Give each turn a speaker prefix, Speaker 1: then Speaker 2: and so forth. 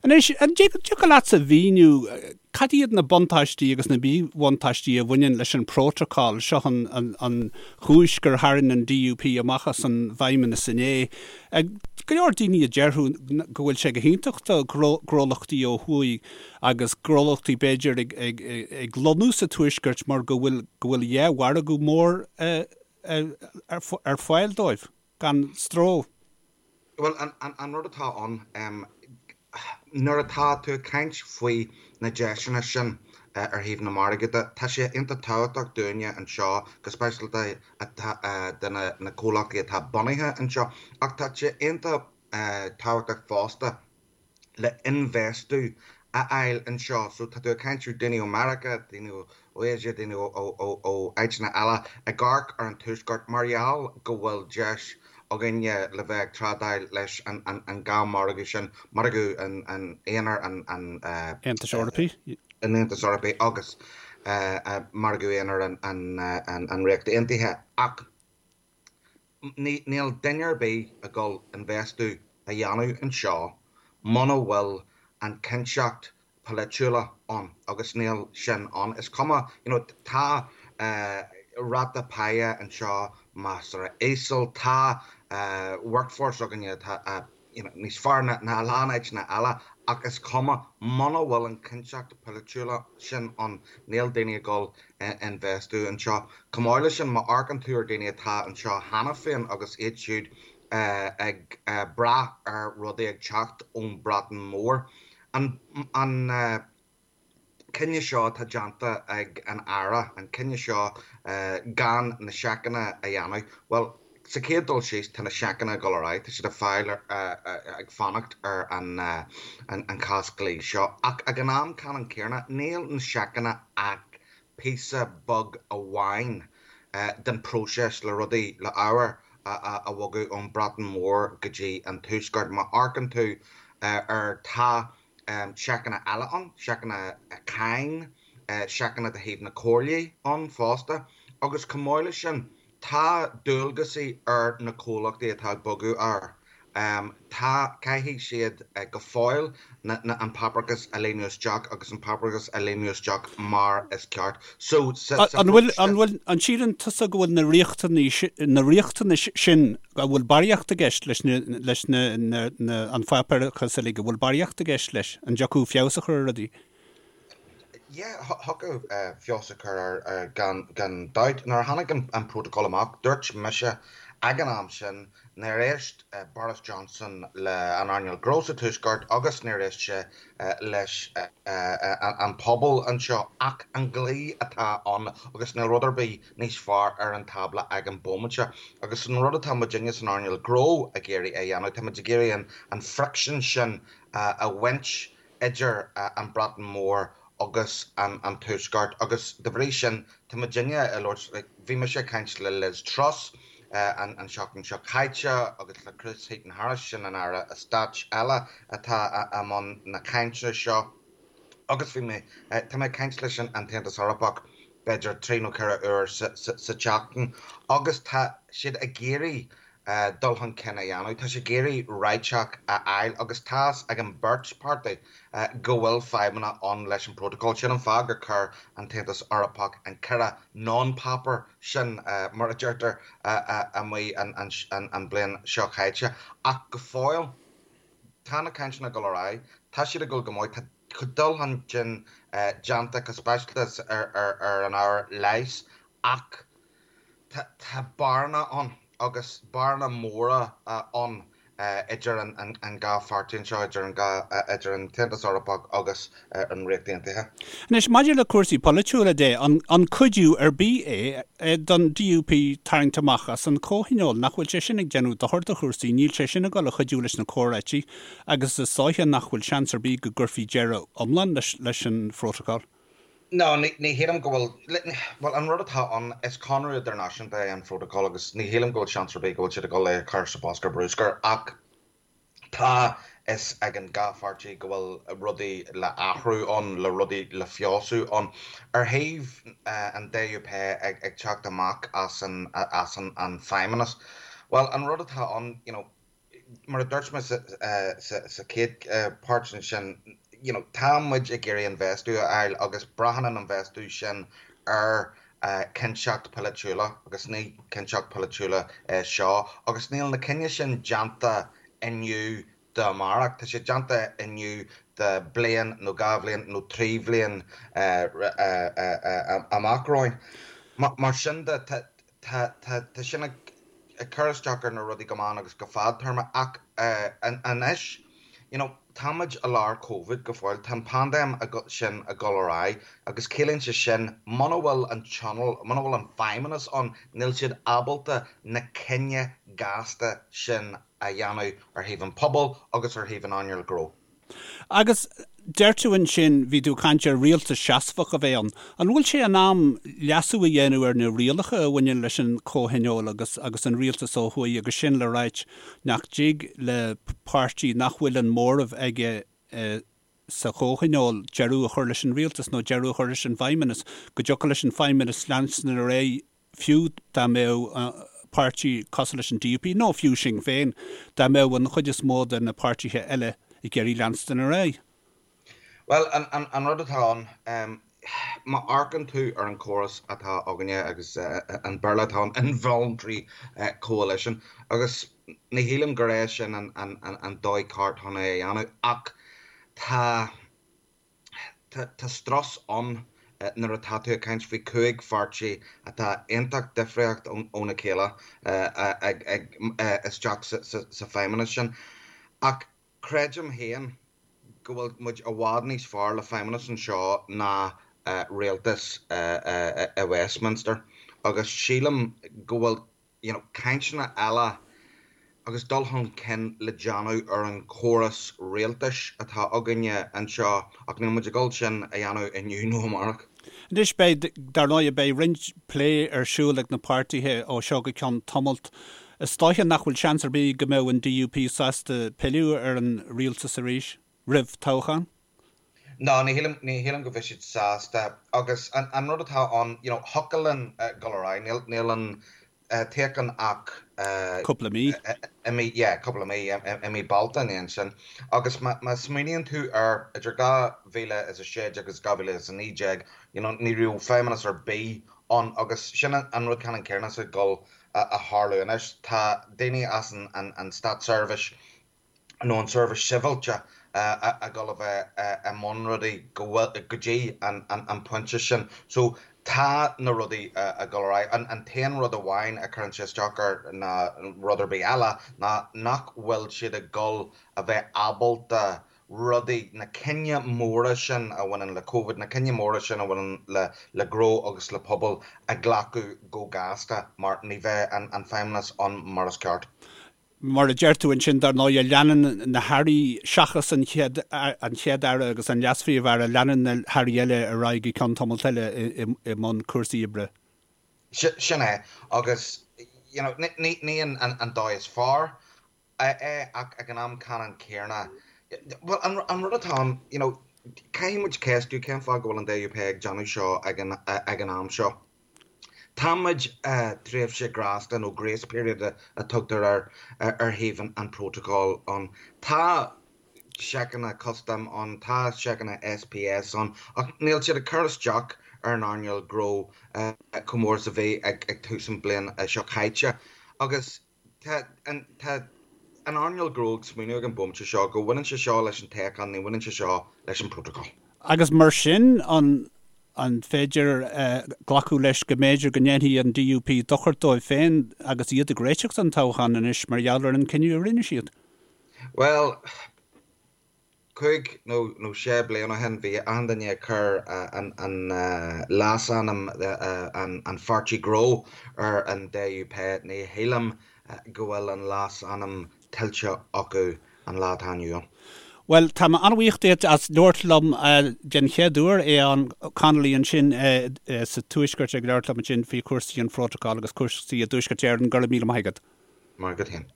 Speaker 1: Anois, an dtiocfadh leatsa a mhíniú cad iad na buntáistí agus na míbhuntáistí a bhaineann leis an bprótacal? Seo an chúis gur tharraing an DUP amach as an bhFeidhmeannas inné. Go leor daoine a déarfadh go bhfuil sé go hiontach do ghnólachtaí ó thuaidh agus gnólachtaí b'fhéidir ag lonnú sa Tuaisceart mar go bhfuil go bhfuil dhá mhargadh mór ar fáil dóibh gan stró.
Speaker 2: Bhuel, an rud atá ann, nuair atá tú ag caint faoi na deiseanna sin ar thaobh na margaí de, tá sé iontach tábhachtach dúinne anseo, go speisialta do na comhlachtaí atá bunaithe anseo, ach tá sé iontach tábhachtach fosta le infheistiú a fháil anseo. So tá tú ag caint ar daoine ó Meiriceá, daoine ó Asia, daoine ó áiteanna eile ag amharc ar an Tuaisceart mar gheall go bhfuil deis againne le bheith ag trádáil leis an dhá mhargadh sin, margadh an aonair an
Speaker 1: Aontais Eorpaigh.
Speaker 2: an Aontais Eorpaigh agus margadh aonair an Ríocht Aontaithe. Ach Níl duine ar bith ag dul infheistiú a dhéanamh anseo muna bhfuil an cinnteacht polaitiúla ann agus níl sin ann. Is cuma, you know, tá ráta páighe anseo measartha íseal, tá workforce againne atá you know, níos fearr ná a lán áiteanna eile ach is cuma, muna bhfuil an cinnteacht polaitiúla sin ann, níl daoine ag dul infheistiú anseo. Chomh maith leis sin, má amharcann tú ar daoine atá anseo cheana féin agus iad siúd ag brath ar rudaí ag teacht ón Bhreatain Mhór, an, an, cinneadh seo atá déanta ag an Aire, an cinneadh seo gan na seiceanna a dhéanamh, bhuel, sa chéad dul síos, tá na seiceanna ag dul ar aghaidh, tá siad ag fáil, ag fanacht ar an chás dlí seo. Ach ag an am ceannann céanna, níl na seiceanna ach píosa beag amháin den próiseas le rudaí, le ábhair a bhogadh ón Bhreatain Mhór go dtí an Tuaisceart. Má amharcann tú ar, tá seiceanna eile ann, seiceanna cáin, seiceanna de thaobh na comhairlí ann fosta agus chomh maith leis sin tá dualgasaí ar na comhlachtaí atá ag bogadh air. Tá, caithfidh siad go fóill an páipéarachas a líonadh isteach agus an páipéarachas a líonadh isteach mar is ceart. So
Speaker 1: sa An bhfuil, an bhfuil, an síleann tusa go bhfuil na riachtanais, na riachtanais sin An bhfuil barraíocht i gceist leis na, leis na, na, na, an pháipéarachas uilig, an bhfuil barraíocht i gceist leis? An dtiocfadh feabhas a chur ar rudaí?
Speaker 2: Yeah, thiocfadh feabhas a chur air gan, gan dabht. Nuair a tháinig an, an protocol amach, dúirt mise ag an am sin, nár éist Boris Johnson le an earnáil gnó sa Tuaisceart agus níor éist sé leis an pobal anseo ach an dlí atá ann agus níl rud ar bith níos fearr ar an tábla ag an bóimainte. Agus an rud atá muidinne san earnáil gnó ag iarraidh a dhéanamh, tá muid ag iarraidh an friction sin a bhaint idir an Bhreatain Mhór agus an Tuaisceart agus de bhrí sin tá muidinne ag labhairt, like bhí mise ag caint le Liz Truss an tseachtain seo caite agus le Chris Heaton-Harris, sin an Aire Stáit eile atá i mbun na cainte seo agus bhí mé, tá mé ag caint leis an tAontas Eorpach b'fhéidir 3 nó 4 uair sa tseachtain agus tá siad ag iarraidh dul chun cinn a dhéanamh, tá siad ag iarraidh réiteach a fháil agus tá's ag an beirt páirtí go bhfuil fadhbanna ann leis an bprótacal. Sin an fáth gur chuir an tAontas Eorpach an 4 non-paper sin, mar a deirtear, amuigh an bhliain seo chaite. Ach go fóill, tá na cainteanna ag dul ar aghaidh, tá siad ag dul go maith, tá dul chun cinn déanta go speisialta ar an ábhar leighis ach tá bearna ann agus bearna móra ann idir an dhá pháirtí anseo, idir an dhá, idir an tAontas Eorpach agus an Ríocht Aontaithe.
Speaker 1: Anois, maidir le cúrsaí polaitiúla de, an cuidiú ar bith é don DUP tarraingt amach as an Chomhthionól? Nach bhfuil sé sin ag déanamh dochar do chúrsaí? Níl sé sin ag dul a chuidiú leis na comhráití agus is dóiche nach bhfuil seans ar bith go gcuirfí deireadh iomlán leis an phrótacal.
Speaker 2: No, ní shílim go bhfuil, bhuel, an rud atá ann, is conradh idirnáisiúnta é an Phrótacal agus ní shílim go bhfuil seans ar bith go bhfuil siad ag dul é a chur sa bhosca bruscair ach tá fhios ag an dhá pháirtí go bhfuil rudaí le athrú ann, le rudaí le feabhsú ann. Ar thaobh an DUP ag teacht amach as an, as an Feidhmeannas, bhuel, an rud atá ann, you know, mar a dúirt mé sa chéad páirt ansin, you know, tá muid ag iarraidh infheistiú a fháil agus braitheann an infheistiú sin ar cinnteacht polaitiúla agus ní cinnteacht polaitiúla é seo agus níl na cinneadh sin déanta inniu d'amárach, tá sé déanta inniu do bliain nó 2 bhliain nó 3 bhliain amach romhainn. Mar sin de, tá sin ag cur isteach ar na rudaí go meán agus go fadtéarma ach anois, you know, tá muid i lár Covid go fóill, tá an paindéim sin ag dul ar aghaidh agus ciallaíonn sé sin muna bhfuil an tionól, muna bhfuil an feidhmeannas ann, níl siad ábalta na cinneadh gasta sin a dhéanamh ar thaobh an pobail agus ar thaobh an earnáil gnó.
Speaker 1: Agus deir tú ansin, bhí tú ag caint ar rialtas seasmhach a bheith ann. An bhfuil sé in am leasú a dhéanamh ar na rialacha a bhaineann leis an chomhthionól agus agus an rialtas ó thuaidh agus sin le ráit nach dtig le páirtí nach bhfuil an móramh aige sa chomhthionól deireadh a chur leis an rialtas nó deireadh a chur leis an bhfeidhmeannas, go dtiocfadh leis an feidhmeannas leanstan ar aghaidh fiú dá mbeadh páirtí cosúil leis an DUP, nó fiú Sinn Féin, dá mbeadh an chuid is mó de na páirtithe eile ag iarraidh leanstan ar aghaidh.
Speaker 2: Bhuel, an rud atá ann, má amharcann tú ar an chóras atá againne agus an Béarla atá ann, involuntary coalition, agus ní shílim gur é sin an dóigh ceart chun é a dhéanamh, ach tá. Tá strus ann nuair atá tú ag caint faoi 5 pháirtí atá iontach difríocht óna chéile ag isteach sa feidhmeannas sin. Ach creidim féin go bhfuil muid i bhfad níos fearr le feidhmeannas anseo ná rialtas i Westminster agus sílim go bhfuil you know, cainteanna eile agus dul chun cinn le déanamh ar an chóras rialtais atá againne anseo ach níl muid ag dul sin a dhéanamh inniu nó amárach.
Speaker 1: Anois beidh, dar ndóigh, beidh roinnt plé ar siúl ag na páirtithe ó seo go ceann tamalt. Is dóiche nach bhfuil seans ar bith go mbeadh an DUP sásta pilleadh ar an rialtas arís roimh toghchán?
Speaker 2: No, ní shílim, ní shílim go bheidh siad sásta agus an, an rud atá ann, you know, thiocfadh linn dul ar aghaidh, níl, níl an toghchán ach
Speaker 1: Cúpla mí.
Speaker 2: i mí, yeah, cúpla mí, i mí Bealtaine ansin. Agus má, má smaoiníonn tú ar idir 2016 agus 2019, you know, ní raibh feidhmeannas ar bith ann agus sin an rud ceannann céanna is ag dul a tharlú anois. Tá daoine as an, an, an státseirbhís nó an seirbhís sibhialta ag dul a bheith i mbun rudaí go bhfuil, go dtí an pointe sin. So tá na rudaí ag dul ar aghaidh. An t-aon rud amháin a chuireann sé isteach air ná rud ar bith eile ná nach bhfuil siad ag dul a bheith ábalta rudaí, na cinneadh móra sin a bhaineann le Covid, na cinneadh móra sin a bhaineann le le gnó agus le pobal a ghlacadh go gasta mar ní bheidh an feidhmeannas ann mar is ceart.
Speaker 1: Mar a deir tú ansin, dar ndóigh, leanann na hairí, seachas an Chéad, an Chéad-Aire agus an Leas-Phríomh-Aire, leanann na hairí eile ar aghaidh go ceann tamalt eile i mbun cúrsaí oibre.
Speaker 2: Sin é. Agus, you know, ní an dóigh is fearr é ach ag an am ceannann céanna, bhuel, an rud atá ann, you know, caithfidh muid ceistiú cén fáth go bhfuil an DUP ag déanamh seo ag an am seo. Tá muid i dtréimhse grásta nó grace period a tugtar air ar thaobh an protocol ann. Tá seiceanna custaim ann, tá seiceanna SPS ann ach níl siad ag cur isteach ar an earnáil gnó chomh mór is a bhí ag tús an bliain seo caite. Agus Tá an an earnáil gnó ag smaoineamh ag an bhomaite seo go bhaineann sé seo leis an toghchán, ní bhaineann sé seo leis an protocol.
Speaker 1: Agus mar sin, an an féidir glacadh leis go mb'fhéidir go ndéanfaidh an DUP dochar dóibh féin agus iad ag réiteach don toghchán anois mar gheall ar an cinneadh a rinne siad?
Speaker 2: Bhuel, 5 nó nó 6 bliain ó shin bhí achan duine ag cur an an leasainm an pháirtí gnó ar an DUP. Ní shílim go bhfuil an leasainm tuillte acu an lá atá inniu ann.
Speaker 1: Bhuel, tá mé an-bhuíoch díot as labhairt liom den chéad uair, Aodhán Connolly ansin sa Tuaisceart ag labhairt liom ansin faoi chúrsaí an phrótacail agus cúrsaí i dTuaisceart Éireann. Go raibh míle maith agat.
Speaker 2: Maith agat féin.